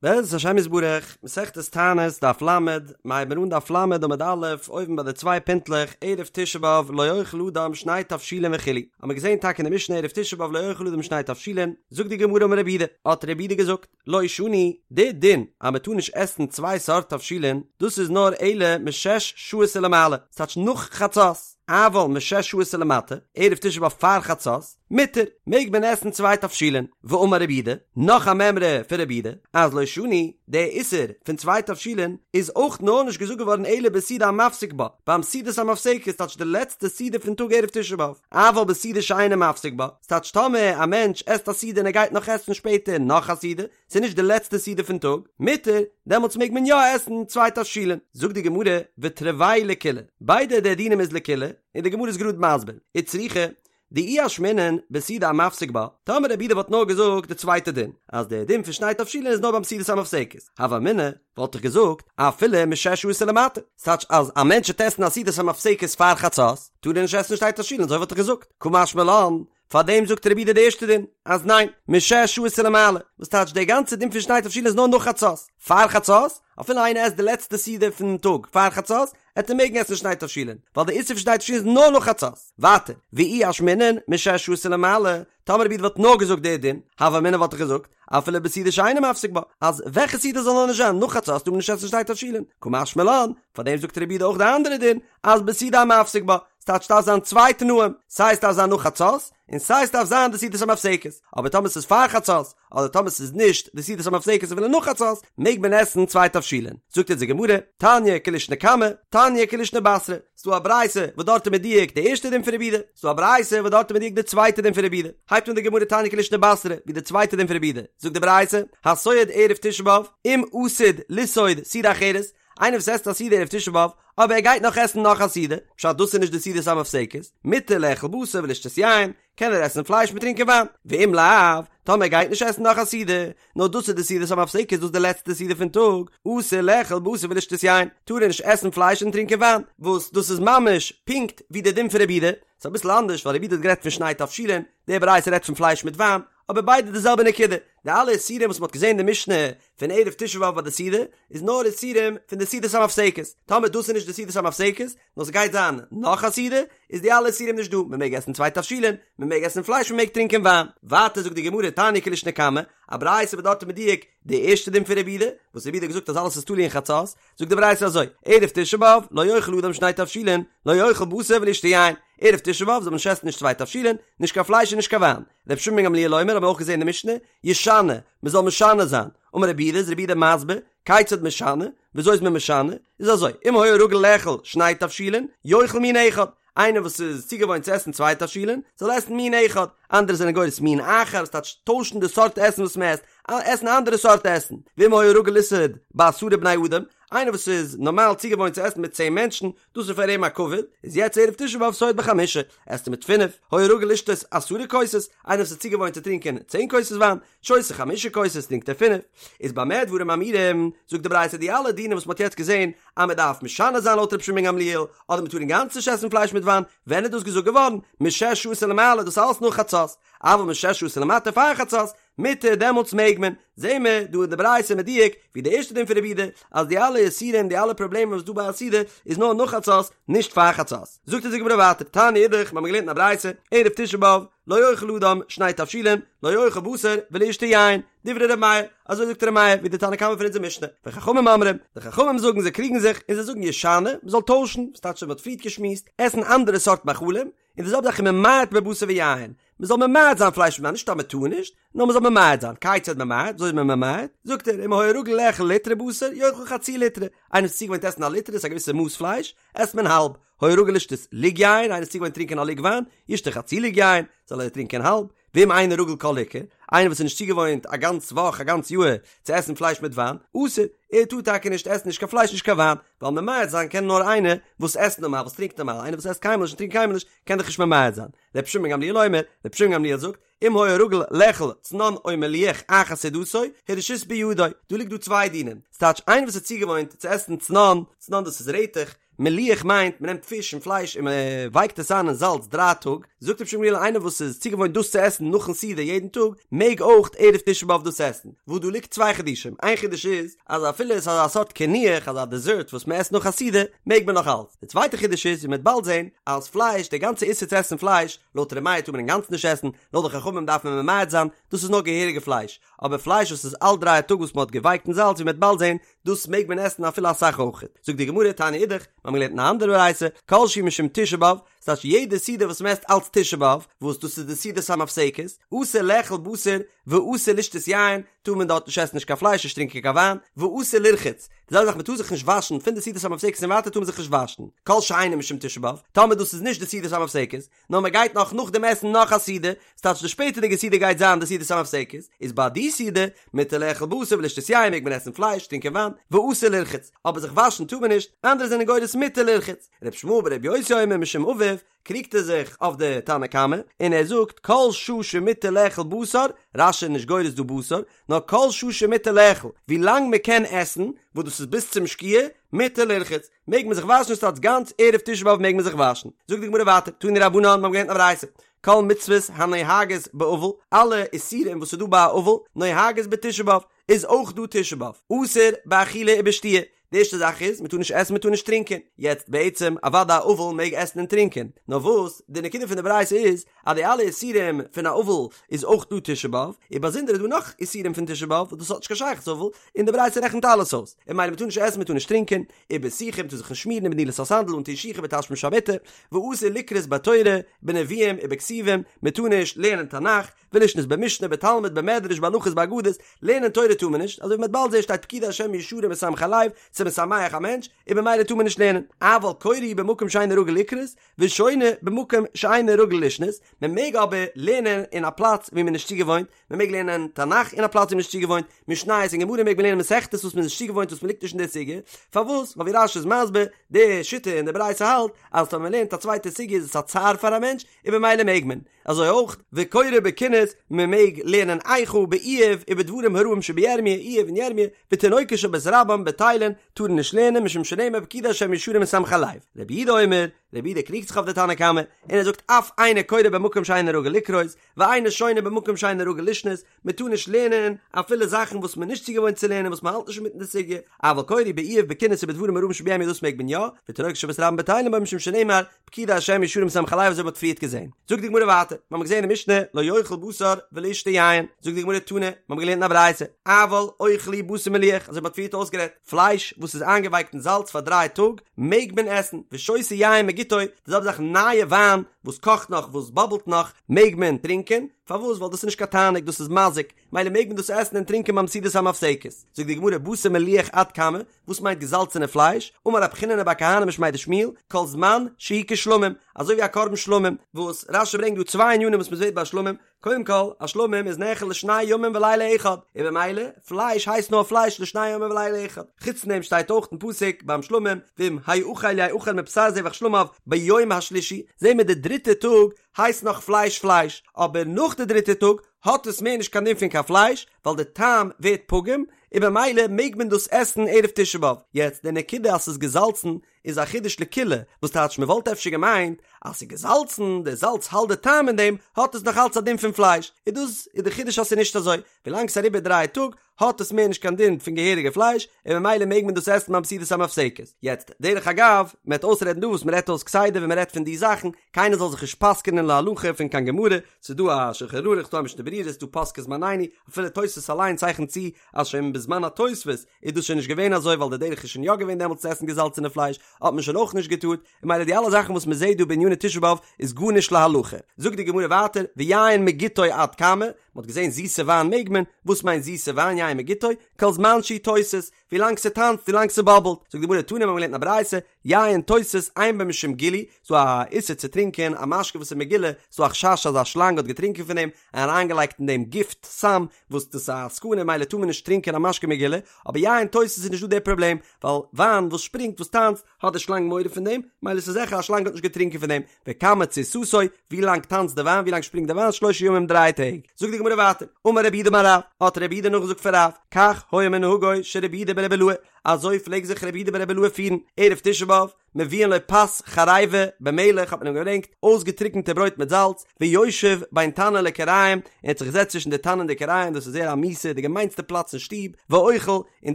בעזרת השם יתברך, מסכת תענית, דף ל, מ'הייבן אן דף ל עמוד א', אויבן ביי די צוויי פינטלעך, ערב תשעה באב לא יאכל אדם שני תבשילין וכו', האמיר געזען טאקע אין די משנה ערב תשעה באב לא יאכל אדם שני תבשילין, זאגט די גמרא אמר רב יהודה, האט רב יהודה געזאגט, לא שנו, די דין אז מען טאר נישט עסן צוויי סארט תבשילין, דאס איז נאר אלא משש שעות ולמעלה, ס'טייטש נאך חצות, אבל משש שעות ולמטה, ערב תשעה באב פאר חצות, מותר, מעג מען עסן צוויי תבשילין, ואמר רב יהודה, נאך א מימרא פון רב יהודה, אז לא שנו, די איסור פון צוויי תבשילין איז אויך נאר נישט געזאגט געווארן אלא בסעודה המפסיק בה, ביים סעודת המפסקת, ס'טייטש די לעצטע סעודה פון טאג ערב תשעה באב, אבל בסעודה שאינה מפסיק בה, ס'טייטש טאמער א מענטש עסט א סעודה און ער גייט נאך עסן שפעטער נאך א סעודה, ס'איז נישט די לעצטע סעודה פון טאג, מותר, דעמאלטס מעג מען יא עסן צוויי תבשילין. זאגט די גמרא, ותרוייהו לקולא, ביידע די דינים איז לקולא, און די גמרא איז גראד מסביר, וצריכא, דאי אשמעינן בסעודה המפסיק בה, טאמער רב יהודה וואלט נאר געזאגט די צווייטע דין, אז דער דין פון שני תבשילין איז נאר ביים סעודת המפסקת, הוה אמינא, וואלט איך געזאגט, אפילו משש שעות ולמטה, ס'טייטש אז א מענטש וועט עסן א סעודת המפסקת פאר חצות, טאר ער נישט עסן שני תבשילין, אזוי וואלט איך געזאגט, קא משמע לן, פארדעם זאגט רב יהודה די ערשטע דין, אז ניין, משש שעות ולמעלה, וואס טייטש דער גאנצער דין פון שני תבשילין איז נאר נאך חצות, פאר חצות, אפילו איינער עסט די לעצטע סעודה פון טאג פאר חצות, עט ער מעגן עסן שני תבשילין, ווייל די איסור פון שני תבשילין איז נאר נאך חצות. ווייטער, ואי אשמעינן, משש שעות ולמעלה, טאמער רב יהודה וואלט נאר געזאגט די דין, הוה אמינא וואלט איך געזאגט, אפילו בסעודה שאינה מפסיק בה, אז וועלכע סעודה זאל נאר נישט זיין, נאך חצות טאר מען נישט עסן שני תבשילין, קא משמע לן, פארדעם זאגט רב יהודה אויך די אנדערע דין, אז בסעודה המפסיק בה, ס'טייטש ס'דארף זיין צוויי תנאים, סיי ס'דארף זיין נאך חצות, און סיי ס'דארף זיין די סעודת המפסקת, אבער טאמער ס'איז פאר חצות, אדער טאמער ס'איז נישט די סעודת המפסקת אפילו נאך חצות, מעג מען עסן צוויי תבשילין. זאגט אונז די גמרא, תניא כלישנא קמא, תניא כלישנא בתרא, ס'דא א ברייתא וואס דארט איז מדויק די ערשטע דין פון רב יהודה, ס'דא א ברייתא וואס דארט איז מדויק די צווייטע דין פון רב יהודה. הייבט אן די גמרא תניא כלישנא בתרא, ווי די צווייטע דין פון רב יהודה, זאגט די ברייתא, הסועד ערב תשעה באב, אם עתיד לסעוד סעודה אחרת, איינער וואס עסט א סעודה ערב תשעה באב, אבער ער גייט נאך עסן נאך א סעודה, פשט דאס איז נישט די סעודת המפסקת, מותר לאכול בשר ולשתות יין, קען ער עסן פלייש מיט טרינקען וויין, ואם לאו, טאמער ער גייט נישט עסן נאך א סעודה, נאר דאס איז די סעודת המפסקת דאס איז די לעצטע סעודה פון טאג, אסור לאכול בשר ולשתות יין, טאר ער נישט עסן פלייש און טרינקען וויין, וואס דאס איז ממש פונקט ווי די דין פון רב יהודה, ס'איז אביסל אנדערש ווייל רב יהודה האט גערעדט פון שני תבשילין, די ברייתא רעדט פון פלייש מיט וויין, אבער ביידע די זעלבע נקודה, די אלע איסורים וואס מ'האט געזען אין די משנה פון ערב תשעה באב ביי די סעודה, איז נאר איסורים פון די סעודת המפסקת, טאמער דאס איז נישט די סעודת המפסקת, נאר ס'גייט זיין נאך א סעודה, איז די אלע איסורים נישט דא, מ'מעג עסן צוויי תבשילין, מ'מעג עסן פלייש מ'מעג טרינקען וויין. ווייטער זאגט די גמרא תניא כלישנא קמא, א ברייתא וואס דארט איז מדויק די ערשטע דין פון רב יהודה, וואס רב יהודה האט געזאגט אז אלעס איז תלוי אין חצות, זאגט די ברייתא אזוי, ערב תשעה באב לא יאכל אדם שני תבשילין, לא יאכל בשר ולא ישתה יין, ערב תשעה באב זאל מען נישט עסן נישט צוויי תבשילין, נישט קיין פלייש און נישט קיין וויין. רבי שמעון בן גמליאל אומר האבן מיר אויך געזען אין די משנה, ישנה, מען זאל משנה זיין, אמר רבי יהודה איז רבי יהודה מסביר, כיצד משנה, וויאזוי איז מען משנה, איז אזוי, אם היה רגיל לאכול שני תבשילין, יאכל מין אחד, איינער וואס איז צוגעוואוינט צו עסן צוויי תבשילין, זאל עסן מין אחד, אנדערע זענען גורס מין אחר, וואס טייטש טוישן די סארט עסן וואס מען עסט, עסן א אנדערע סארט עסן, ואם היה רגיל לסעוד בעשרה בני אדם, איינער וואס איז נארמאל צוגעוואוינט צו עסן מיט צען מענטשן, דאס איז פאר אים א כבוד, איז יעצט ערב תשעה באב סועד בחמישה, עסט ער מיט פינף, היה רגיל לשתות עשרה כוסות, איינער וואס איז צוגעוואוינט צו טרינקען צען כוסות וויין, שותה חמשה כוסות, טרינקט ער פינף. איז במה דברים אמורים, זאגט די ברייתא די אלע דינים וואס מען האט יעצט געזען, אז מען דארף משנה זיין לויט רבי שמעון בן גמליאל, אדער מען טאר אינגאנצן נישט עסן פלייש מיט וויין, ווען איז דאס געזאגט געווארן? משש שעות ולמעלה, דאס אלעס נאך חצות, אבל משש שעות ולמטה פאר חצות, מותר דעמאלטס מעג מען, זעהן מיר דא אין די ברייתא מדויק ווי די ערשטע דין פון רבי יהודה אז די אלע איסורים די אלע פראבלעמען וואס דא ביי א סעודה איז נאר נאך חצות נישט פאר חצות. זאגט אונז די גמרא ווייטער תניא אידך מ'האמיר געלערנט אין א ברייתא ערב תשעה באב לא יאכל אדם שני תבשילין לא יאכל בשר ולא ישתה יין דברי ר' מאיר אזוי זאגט ר' מאיר ווי די תנא קמא פון אונזער משנה וחכמים אומרים די חכמים זאגן זיי קריגן זיך און זיי זאגן ישנה מ'זאל טוישן וואס טייטש מ'האט פריערט געשמועסט עסן אנדערע סארט מאכלים און די זעלבע זאך וממעט בבשר ויין, מען זאל ממעט זיין פלייש און וויין, נישט אז מען טאר נישט, נאר מען זאל ממעט זיין, כיצד ממעט, וויאזוי איז מען ממעט, זאגט ער, אם היה רגיל לאכול ליטרא בשר, יאכל חצי ליטרא, איינער איז צוגעוואוינט עסן א ליטרא, איז א געוויסע מאס פלייש, עסט מען האלב, היה רגיל לשתות לוג יין, איינער איז צוגעוואוינט טרינקען א לוג וויין, ישתה חצי לוג יין, זאל ער טרינקען האלב, ואם אינו רגיל כל עיקר, איינער וואס איז נישט צוגעוואוינט א גאנץ וואך א גאנץ יאהר צו עסן פלייש מיט וויין, אסור, ער טאר טאקע נישט עסן נישט קיין פלייש נישט קיין וויין, ווייל ממעט זיין קען נאר איינער וואס עסט נארמאל וואס טרינקט נארמאל, איינער וואס עסט קיינמאל נישט און טרינקט קיינמאל נישט קען דאך נישט ממעט זיין. רבי שמעון בן גמליאל אומר, רבי שמעון בן גמליאל זאגט, אם היה רגיל לאכול צנון או מליח אחר סעודתו, הרשות בידו, דא ליגט דא צוויי דינים, ס'טייטש איינער וואס איז צוגעוואוינט צו עסן צנון, צנון דאס איז רעטעך, מליח מיינט מען נעמט פיש און פלייש און מען ווייקט עס איין אין זאלץ דריי טאג, זאגט רבי שמעון בן גמליאל איינער וואס איז צוגעוואוינט דאס צו עסן נאכן סעודה יעדן טאג, מעג אויך ערב תשעה באב דאס עסן, וואס דא ליגט צוויי חידושים, איין חידוש איז אז אפילו עס איז אזא סארט קינוח, אזא דעזערט וואס מען עסט נאך א סעודה, מעג מען נאך אלץ. די צווייטע חידוש איז, ווי מען וועט באלד זען, אז פלייש, די גאנצע איסור צו עסן פלייש, לויט ר' מאיר טאר מען אינגאנצן נישט עסן, לויט די חכמים דארף מען ממעט זיין, דאס איז נאר געהעריגע פלייש, אבער פלייש וואס איז אלט דריי טאג וואס מען האט געווייקט אין זאלץ ווי מען וועט באלד זען, דאס מעג מען עסן אפילו אסאך אויכעט. זאגט די גמרא, תניא אידך, מיר האבן געלערנט אין א אנדערע ברייתא, כל שהוא משום תשעה באב, ס'טייטש יעדע סעודה וואס מען עסט אלץ תשעה באב, וואס דאס איז די סעודת המפסקת, אסור לאכול בשר ואסור לשתות יין, טאר מען דארט נישט עסן נישט קיין פלייש נישט טרינקען קיין וויין, ואסור לרחוץ, די זעלבע זאך מען טאר זיך נישט וואשן, פון די סעודת המפסקת און ווייטער טאר מען זיך נישט וואשן, כל שאינו משום תשעה באב, טאמער דאס איז נישט די סעודת המפסקת, נאר מען גייט נאך נאך דעם עסן נאך א סעודה, ס'טייטש די שפעטערדיגע סעודה גייט זיין די סעודת המפסקת, איז ביי די סעודה, מותר לאכול בשר ולשתות יין מעג מען עסן פלייש, טרינקען וויין, ואסור לרחוץ, אבער זיך וואשן טאר מען נישט, אנדערע זענען גורס מותר לרחוץ. ר' ישמעאל בר' יוסי אומר משום אביו, קריגט ער זיך אויף די תנא קמא, און ער זאגט כל שעה שמותר לאכול בשר, רש"י איז נישט גורס דא בשר, נאר כל שעה שמותר לאכול, ווי לאנג מען קען עסן, וואס דאס איז ביז צום שקיעה, מותר לרחוץ, מעג מען זיך וואשן ס'טייטש גאנץ ערב תשעה באב מעג מען זיך וואשן. זאגט די גמרא ווייטער, תנו רבנן, מיר האבן געלערנט א ברייתא, כל מצוות הנוהגות באבל, אלע איסורים וואס איז דא ביי א אבל, נוהגות בתשעה באב, איז אויך דא תשעה באב, אסור באכילה ובשתיה, די ערשטע זאך איז, מען טאר נישט עסן מען טאר נישט טרינקען, יעצט בעצם אוודאי א אבל מעג עסן און טרינקען, נאר וואס, די נקודה פון די ברייתא איז, אז די אלע איסורים פון א אבל איז אויך דא תשעה באב, און באזונדער איז דא נאך איסורים פון תשעה באב וואס דאס האט נישט קיין שייכות צו אבל, און די ברייתא רעכנט אלעס אויס, און ממילא מען טאר נישט עסן מען טאר נישט טרינקען, ובסיכה מען טאר זיך נישט שמירן ובנעילת הסנדל אנטון שיך ובתשמיש המיטה, ואסור לקרות בתורה, בנביאים ובכתובים, מען טאר נישט לערנען תנך, ולשנות במשנה בתלמוד במדרש בהלכות באגדות, לערנען תורה טאר מען נישט, אזוי ווי מ'וועט באלד זעהן שטייט פקודי השם ישרים משמחי לב, ס'איז משמח א מענטש, און במילא טאר מען נישט לערנען, אבל קורא הוא במקום שאינו רגיל לקרות, ושונה במקום שאינו רגיל לשנות, מען מעג אבער לערנען אין א פלאץ ווי מען איז נישט צוגעוואוינט, מען מעג לערנען תנך אין א פלאץ ווי מען איז נישט צוגעוואוינט, משניות און גמרא מעג מען לערנען מסכתות וואס מען איז נישט צוגעוואוינט וואס מען ליגט נישט אין די סוגיא, פארוואס? ווייל ווי רש"י איז מסביר, די שיטה אין די ברייתא האלט אז טאמער מען לערנט א צווייטע סוגיא איז עס א צער פאר א מענטש, און במילא מעג מען. אזוי אויך וקורא בקינות, מען מעג לערנען איכה באיוב ובדברים הרעים שבירמיה, איוב און ירמיה, ותינוקות של בית רבן בטלין, טארן נישט לערנען משום שנאמר פקודי השם ישרים משמחי לב. רבי יהודה אומר, רבי יהודה קריגט זיך אויף די תנא קמא, און ער זאגט אף אינו קורא במקום שאינו רגיל לקרות, ואינו שונה במקום שאינו רגיל לשנות, מען טאר נישט לערנען אפילו זאכן וואס מען איז נישט צוגעוואוינט צו לערנען וואס מען האלט נישט אינמיטן די סוגיא, אבל קורא באיוב בקינות ובדברים הרעים שבירמיה דאס מעג מען יא, ותינוקות של בית רבן בטלין בו משום שנאמר פקודי השם ישרים משמחי לב אזוי ווי מ'האט פריערט געזען. זאגט די גמרא ווייטער, מיר האבן געזען אין משנה לא יאכל בשר ולא ישתה יין, זאגט די גמרא תנא, מיר האבן געלערנט אין א ברייתא, אבל אוכל הוא בשר מליח, אזוי ווי מ'האט פריערט אויסגערעדט, פלייש וואס איז איינגעווייקט אין זאלץ פאר דריי טאג מעג מען עסן, ושותה יין מגיתו, די זעלבע זאך נייע וויין וואס קאכט נאך וואס באבלט נאך מעג מען טרינקען, פארוואס? ווייל דאס איז נישט קיין תענוג דאס איז מזיק, מילא מעג מען דאס עסן און טרינקען ביים סעודת המפסקת. זאגט די גמרא בשר מליח עד כמה, וואס מיינט געזאלצענע פלייש? אמר רב חיננא בר כהנא משמיה דשמואל, כל זמן שהוא כשלמים, אזוי ווי א קרבן שלמים, וואס רש"י ברענגט דא צוויי ענינים וואס מען זעט ביי שלמים, קודם כל, א שלמים איז נאכל לשני ימים ולילה אחד, און במילא, פלייש הייסט נאר פלייש לשני ימים ולילה אחד. חוץ פון דעם שטייט אויך אין פסוק ביים שלמים, ואם האכל יאכל מבשר זבח שלמיו ביום השלישי, זעהן מיר די דריטע טאג הייסט נאך פלייש פלייש, אבער נאך די דריטע טאג האט עס מער נישט קיין דין פון קיין פלייש, ווייל די טעם ווערט פגום, און במילא מעג מען דאס עסן ערב תשעה באב. יעצט די נקודה אז ס'איז געזאלצן איז א חידוש לקולא, וואס טייטש מ'וואלט אפשר געמיינט אז ס'איז געזאלצן, די זאלץ האלט די טעם אין דעם, האט עס נאך אלץ א דין פון פלייש, און דאס איז די חידוש אז ס'איז נישט אזוי, ווילאנג ס'איז אריבער דריי טאג האט עס מער נישט קיין דין פון געהעריגע פלייש, און ממילא מעג מען דאס עסן ביים סעודת המפסקת. יעצט, דרך אגב, מען וועט אויסרעדן דא וואס מען רעדט אויס כסדר ווען מען רעדט פון די זאכן, קיינער זאל זיך נישט פסק'ענען להלכה פון קיין גמרא, ס'איז דא א שולחן ערוך, ס'איז דא א משנה ברורה, ס'איז דא פוסקי זמנינו, אפילו תוספות אליין צייכנט צו אז שוין בזמן התוספות איז דאס שוין נישט געווען אזוי ווייל די דרך איז שוין יא געווען דעמאלטס צו עסן געזאלצענע פלייש, האט מען שוין אויך נישט געטארט, און ממילא די אלע זאכן וואס מען זעט דא בעניני תשעה באב איז גארנישט להלכה. זאגט די גמרא ווייטער, ויין מגיתו עד כמה, מען האט געזען זיסע וויין מעג מען, וואס מיינט זיסע וויין יין מגיתו, כל זמן שהוא תוסס, ווילאנג ס'טאנצט ווילאנג ס'באבלט, זאגט די גמרא תנא מיר האבן געלערנט אין א ברייתא, יין תוסס אין בו משום גילוי, ס'דא א איסור צו טרינקען א משקה וואס איז מגולה, ס'דא א חשש אז א שלאנג האט געטרינקען פון דעם, און אריינגעלייגט אין דעם גיפט, סם, וואס דאס איז א סכנה ממילא טאר מען נישט טרינקען א משקה מגולה, אבער יין תוסס איז נישטא דער פראבלעם, ווייל וויין וואס שפרינגט וואס טאנצט, האט די שלאנג מורא פון דעם, מילא ס'איז זיכער א שלאנג האט נישט געטרינקען פון דעם, וכמה תסיסתו, ווי לאנג טאנצט די וויין, ווי לאנג שפרינגט די וויין, שלושה ימים דריי טעג. זאגט די גמרא ווייטער, אמר רב יהודה אמר רב, האט רב יהודה נאכגעזאגט פון רב, כך היה מנהגו של רבי יהודה ברבי אלעאי, אזוי פלעג זיך רבי יהודה ברבי אלעאי פירן, ערב תשעה באב, מביאין לו פת חריבה במלח האט מען אים געברענגט אויסגעטריקענטע ברויט מיט זאלץ, ויושב בין תנור לכיריים, ער האט זיך געזעצט צווישן די תנור און די כיריים, דאס איז זייער א מיאוסע, די געמיינסטע פלאץ אין שטוב, ואוכל, און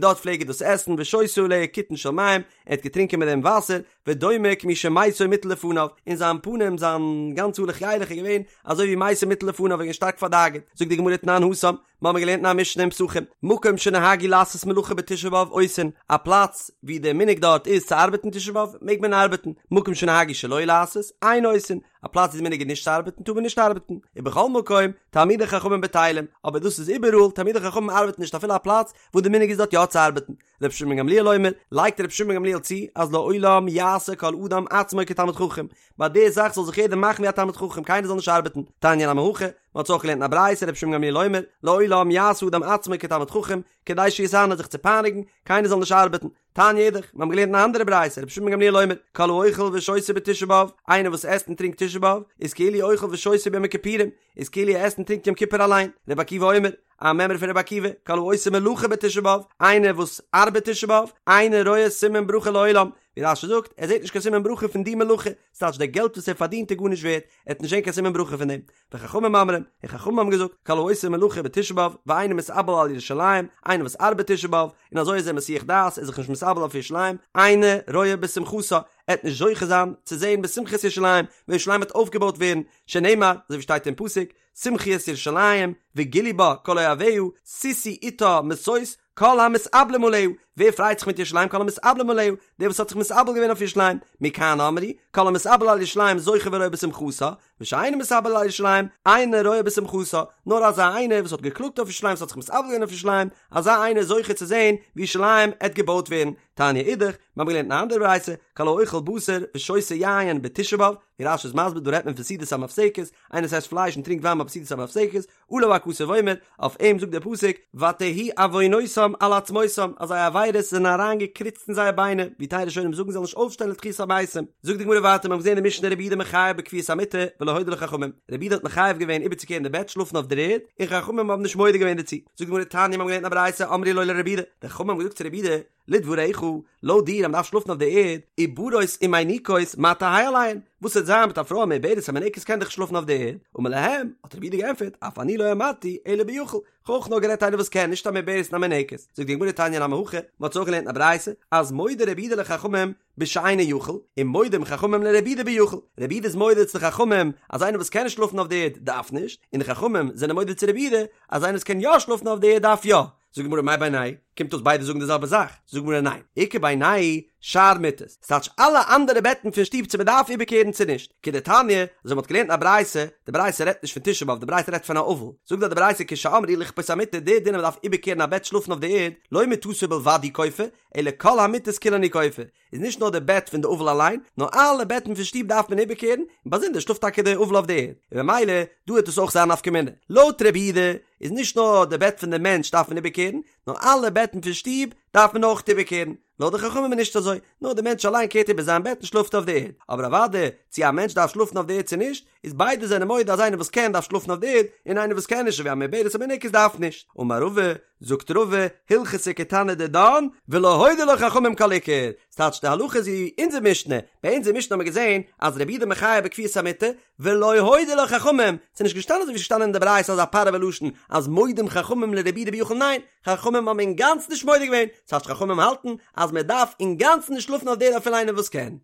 דארט פלעג ער דאס עסן, ושותה עליה קיתון של מים, ער האט געטרינקען מיט דעם וואסער, ודומה כמי שמתו מוטל לפניו, און זיין פנים, זיין גאנצע הלוך ילך איז געווען אזוי ווי מתו מוטל לפניו, ער איז געווען שטארק פארדאגה'ט, זאגט די גמרא תנן התם, מיר האבן געלערנט אין א משנה אין פסחים, מקום שנהגו לעשות מלאכה בתשעה באב עושין, א פלאץ ווי דער מנהג דארט איז צו ארבעטן תשעה באב, מעג מען ארבעטן, מקום שנהגו שלא לעשות, אין עושין, א פלאץ ווי די מנהג איז נישט צו ארבעטן טאר מען נישט ארבעטן, ובכל מקום, תלמידי חכמים בטלים, אבער דאס איז איבעראל, תלמידי חכמים ארבעטן נישט אפילו א פלאץ וואס די מנהג איז דארט יא צו ארבעטן. רבי שמעון גמליאל אומר, לייגט רבי שמעון גמליאל צו, אז לעולם יעשה כל אדם עצמו כתלמיד חכם, ביי די זאך זאל זיך יעדער מאכן ווי א תלמיד חכם, קיינער זאל נישט ארבעטן, תניא נמי הכי, מען האט עס אויך געלערנט אין א ברייתא רבי שמעון גמליאל אומר, לעולם יעשה אדם עצמו כתלמיד חכם, כדי שיתענה זיך צו פייניגן, קיינער זאל נישט ארבעטן. תניא אידך, מיר האבן געלערנט אין א אנדערע ברייתא, רבי שמעון גמליאל אומר, כל האוכל ושותה בתשעה באב, איינער וואס עסט און טרינקט תשעה באב, איז כאילו אוכל ושותה ביום הכיפורים, איז כאילו ער עסט און טרינקט יום כיפור אליין. רבי עקיבא אומר, א מימרא פון רבי עקיבא, כל העושה מלאכה בתשעה באב, איינער וואס ארבעט תשעה באב, אינו רואה סימן ברכה לעולם, ווי רש"י זאגט, ער זעט נישט קיין סימן ברכה פון די מלאכה, ס'טייטש די געלט וואס ער פארדינט איז גארנישט ווערט, ער וועט נישט זען קיין סימן ברכה פון דעם. וחכמים אומרים, און חכמים האבן געזאגט, כל העושה מלאכה בתשעה באב, ואינו מתאבל על ירושלים, איינער וואס ארבעט תשעה באב, און אזוי איז ער מסיח דעת, ער איז זיך נישט מתאבל אויף ירושלים, אינו רואה בשמחתה, ער וועט נישט זוכה זיין צו זען בשמחת ירושלים, ווען ירושלים וועט אויפגעבויט ווערן, שנאמר, אזוי ווי שטייט אין פסוק, שמחו את ירושלים, וגילו בה כל אוהביה, שישו אתה משוש, כל המתאבלים עליה, ווער פרייט זיך מיט ירושלים כל המתאבלים עליה, דער וואס האט זיך מתאבל געווען אויף ירושלים, מכאן אמרו, כל המתאבל על ירושלים זוכה ורואה בשמחתה, ושאינו מתאבל על ירושלים, אינו רואה בשמחתה, נאר אזא איינער וואס האט געקלאגט אויף ירושלים, וואס האט זיך מתאבל געווען אויף ירושלים, אזא איינער איז זוכה צו זען ווי ירושלים עט געבויט ווערן, תניא אידך, מיר האבן געלערנט אין א אנדערע ברייתא, כל האוכל בשר ושותה יין בתשעה באב, ווי רש"י איז מסביר דא רעדט מען פון סעודת המפסקת, איינער וואס עסט פלייש און טרינקט וויין ביי סעודת המפסקת, עליו הכתוב אומר, אויף אים זאגט דער פסוק, ותהי עוונותם על עצמותם, אז זייער עבירות זענען אריין געקריצט אין זייער ביינער, ווי טייל ראשונים זאגן זיי זאלן נישט אויפשטיין לתחיית המתים. זאגט די גמרא ווייטער, מיר האבן געזען אין די משנה רבי יהודה מחייב בכפיית המיטה ולא הודו לו חכמים, רבי יהודה האט מחייב געווען איבערצוקערן די בעט שלאפן אויף דער ערד, און חכמים האבן נישט מודה געווען דערצו. זאגט די גמרא תניא מיר האבן געלערנט אין א ברייתא אמרו לו לרבי יהודה, די חכמים האבן געזאגט צו רבי יהודה, לדבריך, לויט דיר אז מ'דארף שלאפן אויף די ערד, עוברות ומיניקות מה תהא עליהן, וואס וועט זיין מיט א פרוי א מעוברת א מינקת קען דאך נישט שלאפן אויף די ערד, אמר להם, האט רבי יהודה געענטפערט, אף אני לא אמרתי אלא ביכול, כ'האב אויך נאר גערעדט איינער וואס קען, נישט א מעוברת און א מינקת, זאגט די גמרא תניא נמי הכי, מ'האט אזוי אויך געלערנט אין א ברייתא, אז מודה רבי יהודה לחכמים בשאינו יכול, און מודים חכמים לרבי יהודה ביכול, רבי יהודה איז מודה צו די חכמים אז איינער וואס קען נישט שלאפן אויף די ערד דארף נישט, און די חכמים זענען מודה צו רבי יהודה אז איינער וואס קען יא שלאפן אויף די ערד דארף יא. זאגט די גמרא מאי בינייהו קומט אויס ביידע זאגן די זעלבע זאך, זאגט די גמרא ניין, איכא בינייהו שאר מיטות, ס'טייטש אלע אנדערע בעטן פון שטוב צו מ'דארף איבערקערן צו נישט, כדתניא, אזוי מ'האט געלערנט אין א ברייתא, די ברייתא רעדט נישט פון תשעה באב, די ברייתא רעדט פון א אבל, זאגט דארט די ברייתא כשאמרו לכפות המיטה די דין אז מ'דארף איבערקערן א בעט שלאפן אויף די ערד, לא מיטתו בלבד הוא כופה, אלא כל המיטות כולן הוא כופה, איז נישט נאר די בעט פון די אבל אליין, נאר אלע בעטן פון שטוב דארף מען איבערקערן, און באזונדער שלאפט טאקע די אבל אויף די ערד, און במילא דא וועט עס אויך זיין נפקא מינה. לויט רבי יהודה איז נישט נאר די בעט פון די מענטש דארף מען איבערקערן, נאר אלע בעטן פון שטוב דארף מען אויך איבערקערן. לויט די חכמים איז נישט אזוי, נאר די מענטש אליין קערט איבער זיין בעט און שלאפט אויף די ערד. אבער אוודאי צו א מענטש דארף שלאפן אויף די ערד צו נישט, איז ביידע זענען מודה אז איינער וואס קען דארף שלאפן אויף די ערד, און איינער וואס קען נישט אזוי ווי א מעוברת א מינקת דארף נישט. אמר רבא, זאגט רבא, הלכתא כתנא דידן, ולא הודו לו חכמים כל עיקר, ס'טייטש די הלכה איז ווי אונזער משנה, ביי אונזער משנה האט מען געזען אז רבי יהודה מחייב בכפיית המיטה, ולא הודו לו חכמים, ס'איז נישט געשטאנען אזוי ווי ס'איז געשטאנען אין די ברייתא אזא פארעווע לשון אז מודים חכמים לרבי יהודה ביכול ניין, חכמים האבן אינגאנצן נישט מודה געווען, ס'טייטש חכמים האלטן אז מען דארף אינגאנצן נישט שלאפן אויף די ערד אפילו איינער וואס קען.